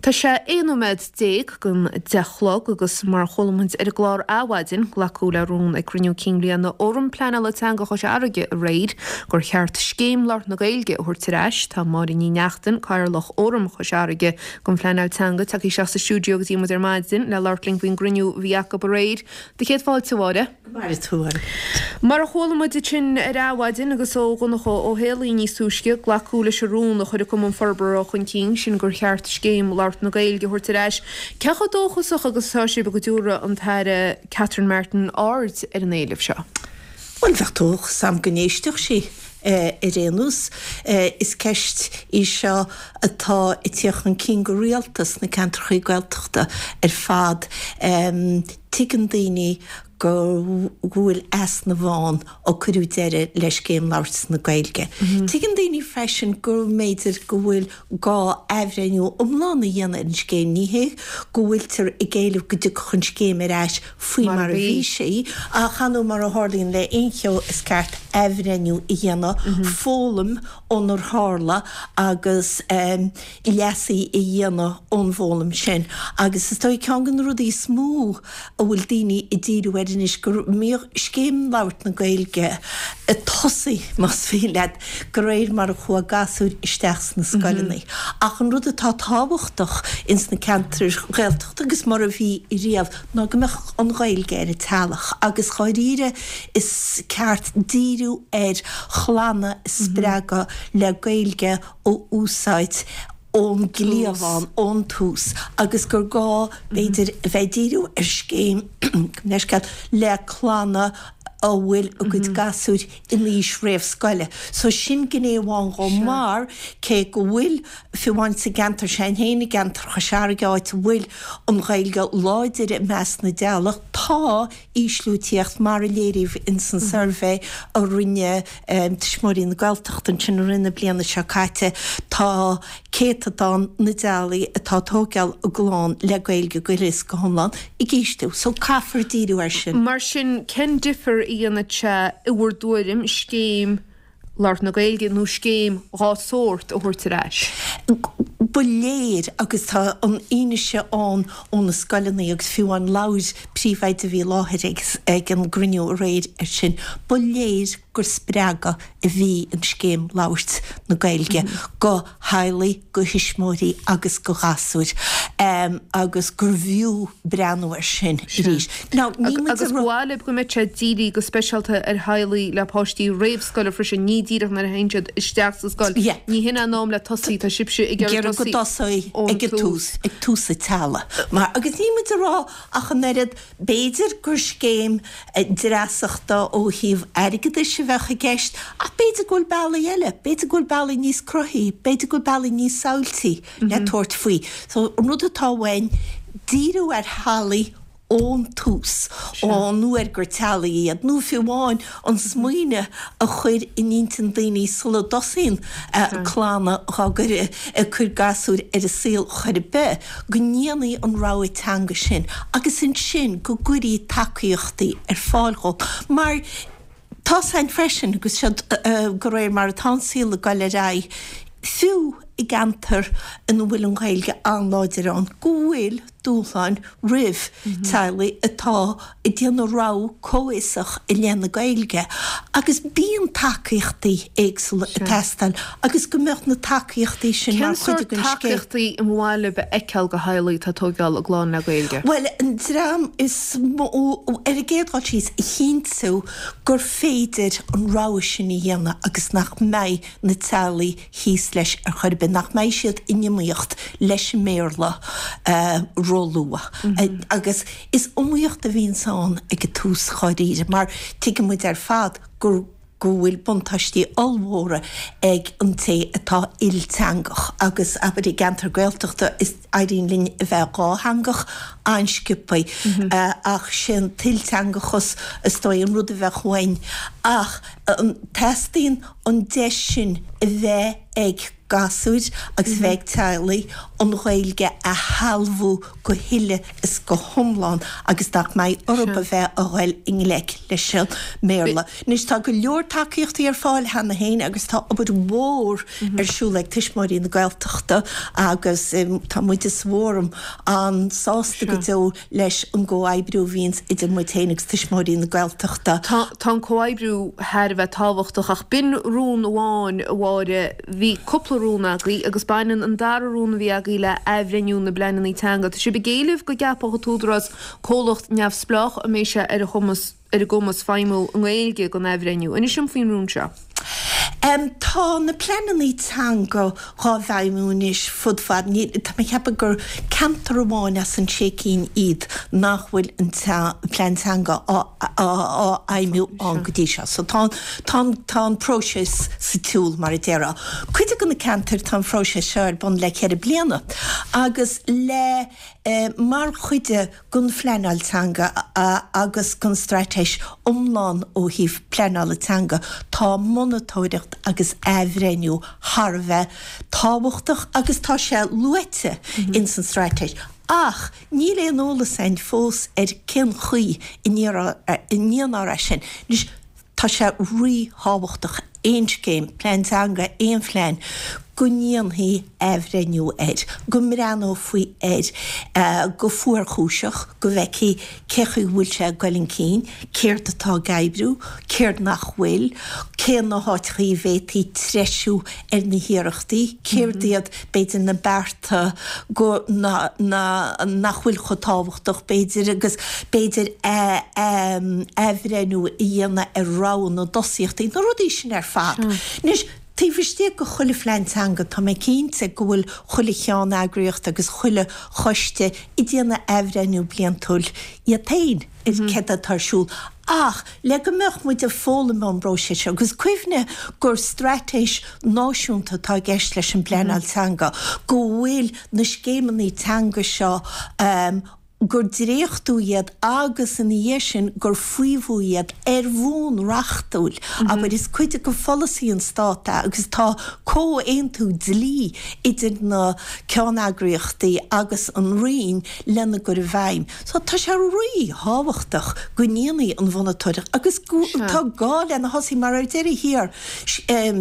Tá sé 11 nóiméad don 10 a chlog agus mar a chuala muid ar an gclár Adhmhaidin, glacadh le rún ag cruinniú cinn bhliana Fhóram Pleanála Teanga Chois Fharraige aréir gur cheart Scéim Labhairt na Gaeilge a thabhairt ar ais. Tá Máire Ní Neachtain, Cathaoirleach Fhóram Chois Fharraige don Phleanáil Teanga, tagtha isteach sa stiúideo go dtí muid ar maidin le labhairt linn faoin gcruinniú a bhí acu aréir. Do chéad fáilte, a Mháire. Go maire tú, a. Mar a chuala muid ansin ar Adhmhaidin agus ó Dhonncha Ó Héalaí níos túisce, glacadh leis an rún a chuir an Cumann Forbartha chun cinn, sin gur cheart Scéim Labhairt na Gaeilge a thabhairt ar ais. Cé chomh dóchasach agus atá sibh go dtabharfaidh an tAire Catherine Martin aird ar an éileamh seo? Bhuel, bheadh dóchas a'm go n-éistfeadh sí ar aon nós. Is ceist í seo atá ag tíocht chun cinn go rialta sna ceantrachaí Gaeltachta ar fad. Tuigeann daoine go bhfuil easnamh ann ó cuireadh deireadh le Scéim Labhairt na Gaeilge. Tuigeann daoine freisin go mb'fhéidir go bhfuil gá athbhreithniú iomlán a dhéanamh ar an scéim. Ní hé go bhfuiltear ag éileamh go dtiocfadh an scéim ar ais faoi mar a bhí sí, ach ar ndóigh mar a tharlaíonn le aon cheo is ceart athbhreithniú a dhéanamh, foghlaim ónar tharla agus leasuithe a dhéanamh ón bhfoghlaim sin. Agus is dóigh ceann de na rudaí is mó a bhfuil daoine ag díriú air anois go mbíodh Scéim Labhairt na Gaeilge ag tosaí, más mian leat, de réir mar a chuaigh gasúir isteach sna scoileanna. Ach an rud atá tábhachtach ins na ceantair Ghaeltachta agus mar a bhí riamh ná go mbeadh an Ghaeilge ar an teallach agus dháiríre is ceart díriú ar chlanna a spreagadh le Gaeilge a úsáid ón gcliabhán, ón tús agus gur gá, b'fhéidir, a bheith ag díriú ar scéim, gabh mo leithscéal, le clanna a bhfuil a gcuid gasúir in aois réamhscoile. So sin gné amháin dhó mar cé go bhfuil, fiú amháin sa gceantar sin féin, i gceantar Chois Fharraige, áit a bhfuil an Ghaeilge láidir i measc na dteaghlach, tá ísliú ag tíocht mar a léiríodh ins an suirbhé a rinne Tuismitheoirí na Gaeltachta ansin i rith na bliana seo caite. Tá céatadán na dteaghlaigh atá ag tóigeáil a gclann le Gaeilge go huile is go hiomlán ag ísliú. So caithfear díriú air sin. Mar sin, cén difear a dhéanfadh sé i bhur dtuairim scéim labhairt na Gaeilge nó scéim dhá sórt a thabhairt ar ais? Ba léir, agus tá an fhianaise ann ó na scoileanna agus fiú amháin labhair príomhoide a bhí i láthair ag an gcruinniú aréir air sin, ba léir gur spreagadh a bhí in Scéim Labhairt na Gaeilge go theaghlaigh, go thuismitheoirí agus go ghasúir agus gurbh fhiú breathnú air sin arís. Now, níl muid Agus ba mhaith libh go mbeadh sé dírithe go speisialta ar theaghlaigh le páistí réamhscoile freisin, ní díreach nuair a théann siad isteach sa scoil. Yeah. Ní hin an am le tosaí, tá sibhse ag iarraidh go tosaí ón ag an tús, ag tús an teaghlaigh. Mar, agus níl muid ag rá ach an oiread, b'fhéidir gur scéim dreasachta ó thaobh airgeadais a bheadh i gceist, ach b'fhéidir go bhfuil bealaí eile, b'fhéidir go bhfuil bealaí níos cruthaithí, b'fhéidir go bhfuil bealaí níos samhailtí le tabhairt faoi. So, an rud atá uainn, díriú ar theaghlaigh ón tús, ón uair gur teaghlaigh iad, nó fiú amháin an smaoineamh a chur in intinn daoine sula dtosaíonn clanna dhá gcur, ag cur gasúir ar an saol chor ar bith, go ndéanfaí an rogha teanga sin agus ansin go gcuirí tacaíochtaí ar fáil dhóibh. Mar tá's a'inn freisin, agus seo de réir mar atá an saol ag dul ar aghaidh, fiú i gceantar ina bhfuil an Ghaeilge an-láidir ann, go bhfuil dúshláin roimh teaghlaigh atá ag déanamh rogha comhfhiosach i leith na Gaeilge agus bíonn tacaíochtaí éagsúla ag teastáil agus go mbeadh na tacaíochtaí sin mar chuid den scéim. Cén sórt tacaíochtaí a mba mhaith libh a fheiceáil do theaghlaigh atá ag tóigeáil a gclann le Gaeilge? Bhuel, an dream is mó, ar an gcéad dul síos, a chinntiú gur féidir an rogha sin a dhéanamh agus nach mbeidh na teaghlaigh thíos leis ar chor ar bith, nach mbeidh siad in iomaíocht leis an mBéarla róluath. Agus is iomaíocht a bhíonns ann ag an tús dháiríre, mar tuigeann muid ar fad go go bhfuil buntáistí ollmhóra ag an té atá ilteangach agus, abair, i gceantar Gaeltachta is éiríonn linn a bheith dhátheangach an-sciobthaí ach sé an t-ilteangachas is dóigh an rud a bheadh uainn ach teastaíonn an deis sin a bheith. ag gasúir agus a bheith ag teaghlaigh an Ghaeilge a shealbhú go huile is go hiomlán agus nach mbeidh orthu a bheith a ghoil i ngleic leis an mBéarla. Anois tá go leor tacaíochtaí ar fáil cheana féin agus tá obair mhór ar siúl ag Tuismitheoirí na Gaeltachta agus tá muide sa bhFóram an-sásta go deo leis an gcomhoibriú a bhíonns idir muid féin agus Tuismitheoirí na Gaeltachta. Tá an comhoibriú thar a bheith tábhachtach ach b'in rún amháin, a Mháire. Bhí cúpla rún agaibh agus baineann an dara rún a bhí agaibh le athbhreithniú na bpleananna teanga. Tá sibh ag éileamh go gceapfadh an tÚdarás comhlacht neamhspleách a mbeidh sé ar a chumas ar a gcumas feidhmiú i nGaeilge don athbhreithniú. Inis dom faoin rún seo. Tá na pleananna teanga dhá bhfeidhmiú anois fud fad, níl, tá mé ag ceapadh gur ceantar amháin as an sé cinn iad nach bhfuil an plean teanga á fheidhmiú ann go dtí seo. So tá, tá, tá an próiseas sa tsiúl mar a déarfá. Cuid de na ceantair tá an phróiseas seo ar bun le ceithre bliana agus le, mar chuid de, den phleanáil teanga agus den straitéis iomlán ó thaobh pleanála teanga, tá monatóireacht agus athbhreithniú thar a bheith tábhachtach agus tá sé luaite ins an straitéis ach níl aon eolas againn fós ar cén chaoi a ndéanfar é sin. Anois, Tá sé ríthábhachtach aon scéim, plean teanga, aon phlean, go ndéanfaí athbhreithniú air, go mbreathnófaí air go fuarchúiseach, go bhfeicfí cé chaoi a bhfuil sé ag goil chun cinn, céard atá ag oibriú, céard nach bhfuil, cé na háiteachaí a bhféadfaí treisiú ar na hiarrachtaí, céard iad, b'fhéidir, na bearta go, na, na, nach bhfuil chomh tábhachtach, b'fhéidir, agus b'fhéidir athbhreithniú a dhéanamh ar rogha na dtosaíochtaí, na rudaí sin ar fad. Anois, taobh istigh de chuile phlean teanga, tá mé cinnte go bhfuil chuile cheanneagraíocht agus chuile choiste ag déanamh athbhreithniú bliantúil iad féin ar céard atá ar siúl. Ach le go mbeadh muid ag foghlaim ón bpróiseas seo, agus cuimhnigh gur straitéis náisiúnta atá i gceist leis an bpleanáil teanga, go bhfuil na scéimeanna teanga seo, gur dréachtú iad agus ina dhiaidh sin gur faomhadh iad ar bhonn reachtúil, abair, is cuid de pholasaí an Stát é agus tá comhaontú dlí idir na ceanneagraíochtaí agus an Roinn lena gcur i bhfeidhm. So tá sé rí-thábhachtach go ndéanfaí an mhonatóireacht agus tá gá lena thosaí mar ar deireadh thiar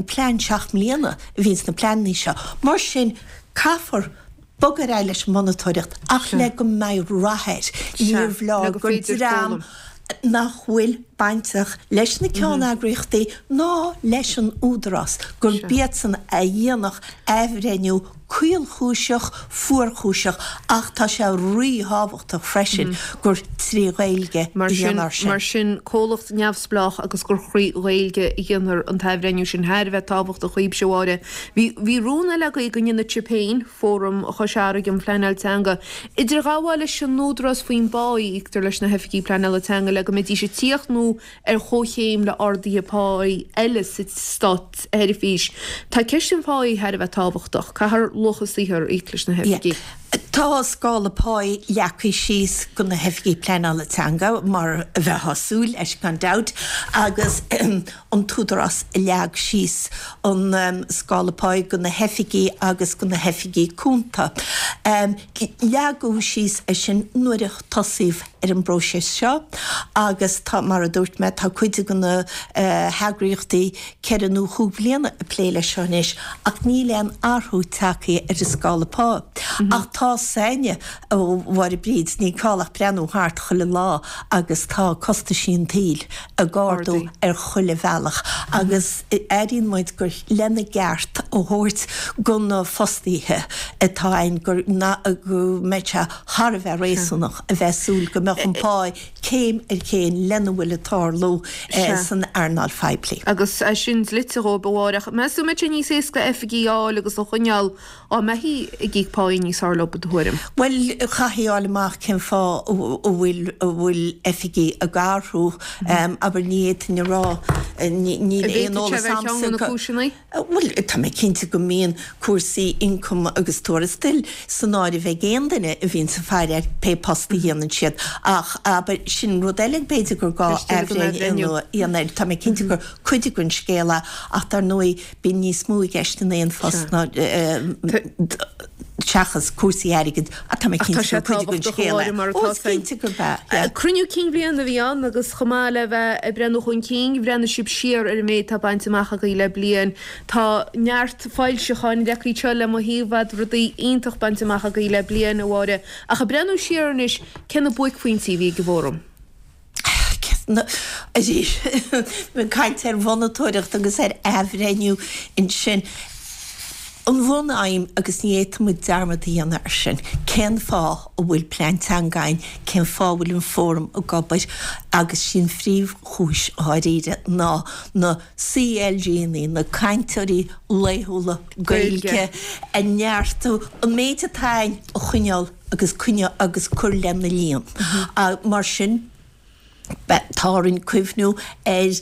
plean seacht mbliana a bhíonn sna pleananna seo. Mar sin caithfear bogadh ar aghaidh leis an monatóireacht ach le go mbeidh rath air. Níorbh leor gur dream nach bhfuil bainteach leis na ceanneagraíochtaí ná leis an Údarás, gurb iadsan a dhéanfadh athbhreithniú caolchúiseach, fuarchúiseach ach tá sé ríthábhachtach freisin gur trí Ghaeilge a dhéanfar sin. Mar sin, comhlacht neamhspleách agus gur thrí Ghaeilge a dhéanfar an t-athbhreithniú sin thar a bheith tábhachtach dhaoibhse, a Mháire. Bhí, bhí rún eile agaibh go ndéanfadh sibh féin, Fóram Chois Fharraige um Phleanáil Teanga, idirghabháil leis an Údarás faoin bpá a íoctar leis na hoifigigh pleanála teanga le go mbeidís ag tíocht nó ar chomhchéim le arduithe páí eile sa státsheirbhís. Tá ceist an pháí thar a bheith tábhachtach. Caithfear luach a saothair a íoc leis na hoifigigh. Tá scála páí leagtha síos do na hoifigigh pleanála teanga, mar a bheifeá ag súil leis gan dabht, agus an tÚdarás a leag síos an scála páí do na hoifigigh agus do na hoifigigh cúnta. Leagadh síos é sin nuair a tosaíodh ar an bpróiseas seo agus tá, mar a dúirt mé, tá cuid de na heagraíochtaí ceithre nó chúig bliana ag plé leis seo anois ach níl aon athrú tagtha ar an scála pá. Ach tá 's againne, a Mháire Bríd, ní call ach breathnú thart chuile lá agus tá costaisí an tsaoil ag ardú ar chuile bhealach agus airíonn muid gur lena gceart a thabhairt go na fostaithe atá ann go mbeadh sé thar a bheith réasúnach a bheith ag súil go mbeadh an pá céim ar chéim lena bhfuil ag tarlú san earnáil phoiblí. Agus é sin dlite dhóibh, a Mháire. Ach meas tú an mbeidh sé níos éasca oifigigh a fháil agus a choinneáil Dá mbeifí ag íoc páí níos fearr leo, i do thuairim? Bhuel, chaithfí a fháil amach cén fáth a bhfuil a bhfuil oifigigh ag athrú. Abair, ní fhéadfainn a rá, níl aon eolas agamsa. An bhféadfadh sé a bheith ar cheann de na cúiseanna? Bhuel, tá mé cinnte go mbíonn cúrsaí ioncaim agus tuarastail san áireamh ag aon duine a bhíonns ag faire ar pé post a dhéanann siad. Ach, abair, sin rud eile b'fhéidir gur gá athbhreithniú a dhéanamh air. Tá mé cinnte gur cuid den scéal é ach dar ndóigh bíonn níos mó i gceist in aon phost ná seachas cúrsaí airgid ach tá mé cinnte gur cuid den scéal é. Ó, is cinnte gurb ea, yeah. Cruinniú cinn bhliana a bhí ann agus chomh maith le bheith ag breathnú chun cinn, bhreathnaigh sibh siar ar an méid atá bainte amach agaibh le bliain. Tá neart foilseacháin leagtha anseo le mo thaobh a'd, rudaí iontach bainte amach agaibh le bliain, a Mháire. Ach ag breathnú siar anois, cé na buaicphointí a bhí ag an bhFóram? Arís, ag caint ar mhonatóireacht agus ar athbhreithniú ansin. An bhun-aidhm, agus ní fhéadfaidh muid dearmad a dhéanamh air sin, cén fáth a bhfuil plean teanga againn, cén fáth a bhfuil an Fóram ag obair, agus sí an phríomhchúis dháiríre ná na CLGanna, na cainteoirí laethúla Gaeilge, a neartú, an méid atá againn a choinneáil agus coinneáil agus cur lena líon. Mar sin, tá orainn cuimhniú ar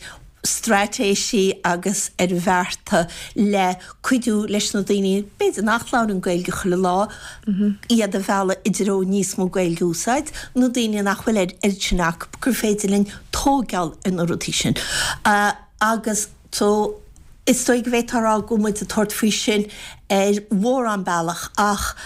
straitéisí agus ar bhearta le cuidiú leis na daoine, b'fhéidir nach labhrann Gaeilge chuile lá, iad a mhealladh i dtreo níos mó Gaeilge a úsáid, na daoine nach bhfuil an oiread sin acu, gur féidir linn tóigeáil ar na rudaí sin. Agus so, is dóigh go bhféadfá a rá go bhfuil muid ag tabhairt faoi sin ar mhórán bealach ach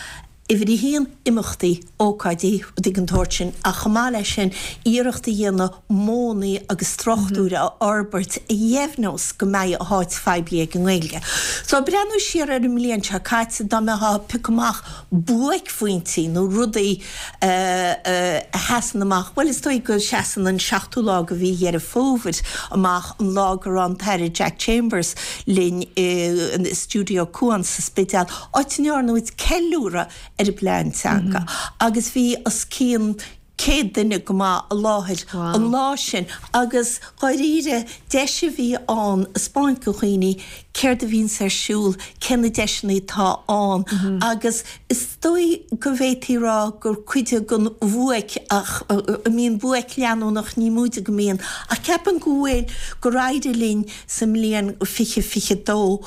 uimhir a haon, imeachtaí, ócáidí, rudaí den tsórt sin ach chomh maith leis sin, iarracht a dhéanamh modhanna agus struchtúir a fhorbairt a dheimhneos go mbeidh a háit phoiblí ag an nGaeilge. So, ag breathnú siar ar an mbliain seo caite, dá mbeifeá ag piocadh amach buaicphointí nó rudaí a sheasann amach, bhuel is dóigh go seasann an seachtú lá de mhí Dheireadh Fómhair amach, an lá go raibh an tAire Jack Chambers linn i Stiúideo Cuan sa Spidéal, áit a ndearna muid ceiliúradh ar an bplean teanga agus bhí os cionn 100 duine go maith i láthair an lá sin agus dháiríre deis a bhí ann 'spáint do dhaoine céard a bhíonns ar siúl, cé na deiseanna atá ann agus is dóigh go bhféadfaí rá gur cuid den bhuaic ach an mbíonn buaic leanúnach, ní móide go mbíonn ach ceapaim go bhfuil, gur éirigh linn sa mbliain 2022.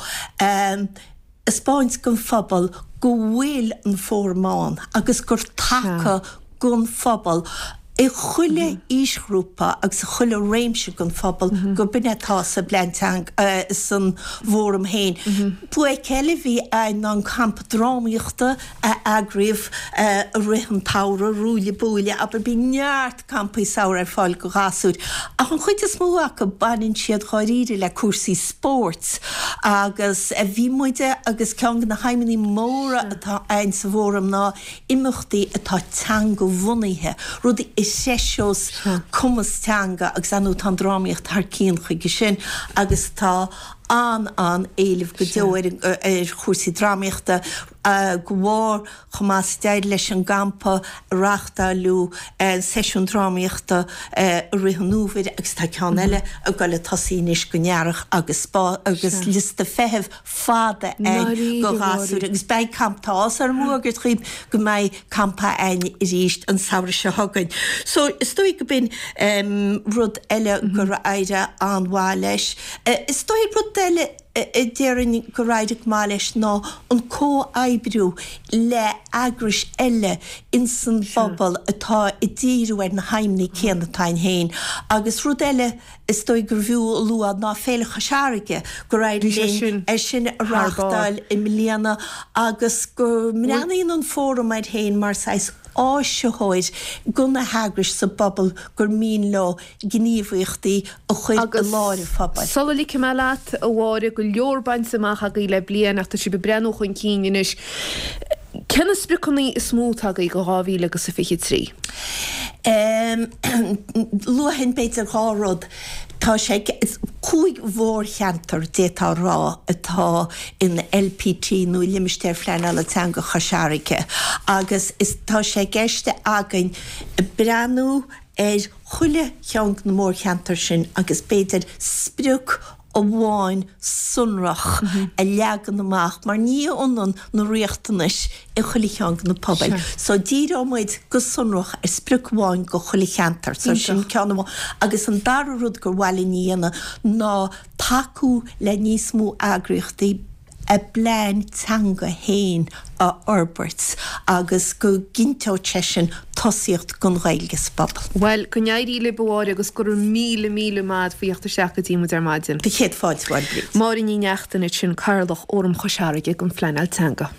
'spáint don phobal go bhfuil an Fóram ann agus gur taca don phobal i chuile aoisghrúpa agus i chuile réimse den phobal gurb in atá sa bplean teanga, san bhFóram féin. Buaic eile a bhí ann ná an campa drámaíochta a eagraíodh i rith an tsamhraidh, Ruaille Buaille, abair, bíonn neart campaí samhraidh ar fáil do ghasúir, ach an chuid is mó acu baineann siad dháiríre le cúrsaí spóirt agus bhí muide agus ceann de na haidhmeanna móra atá againn sa bhFóram ná imeachtaí atá teanga-bhunaithe, rudaí a threiseos cumas teanga agus ar ndóigh tá an drámaíocht thar cionn chuige sin agus tá an-an-éileamh go deo ar chúrsaí drámaíochta de bharr chomh maith is d'éirigh leis an gcampa a reáchtáileadh seisiún drámaíochta i rith an fhómhair agus tá ceann eile ag dul ag tosaí anois don earrach agus agus liosta feithimh fada ann do ghasúir agus beidh camp tá áthas orm a fhógairt dhaoibh go mbeidh campa againn arís an samhradh seo chugainn. So is dóigh go b'in rud eile gur éirigh an-mhaith leis. Is dóigh rud eile a déarfainn gur éirigh go maith leis ná an comhoibriú le eagrais eile ins an bpobal atá ag díriú ar na haidhmeanna céanna atá againn féin. Agus rud eile is dóigh gurbh fhiú a lua ná Féile Chois Fharraige, gur éirigh linn é sin a reáchtáil i mbliana agus go mbreathnaíonn an Fóram air féin mar saghas áisitheoir do na heagrais sa bpobal gur mian leo gníomhaíochtaí a chur i lár an phobail. Agus sula ligfidh mé leat, a Mháire, go leor bainte amach agaibh le bliain ach tá sibh ag breathnú chun cinn anois. Cé na spriocanna is mó atá agaibh do 2000 agus a 23? Luafainn b'fhéidir 2 rud. Tá sé, 5 mhórcheantar d'fhéadfá a rá atá in LPT nó Limistéar Phleanála Teanga Chois Fharraige agus is tá sé i gceist againn breathnú ar chuile cheann de na mórcheantair sin agus b'fhéidir sprioc amháin sonrach a leagan amach mar ní hionann na riachtanais i chuile cheann de na pobail. So díreoidh muid go sonrach ar sprioc amháin do chuile cheantar. So sin ceann amháin. Agus an dara rud gur mhaith linn a dhéanamh ná tacú le níos mó eagraíochtaí. a bplean teanga féin a fhorbairt agus go gcinnteodh sé sin tosaíocht don Ghaeilge sa bpobal. Bhuel, go n-éirí libh a Mháire agus go raibh míle, míle maith agat faoi theacht isteach go dtí muid ar maidin. Céad fáilte, a Mháire Bríd. Máire Ní Neachtain ansin, Cathaoirleach Fhóram Chois Fharraige don Phleanáil Teanga.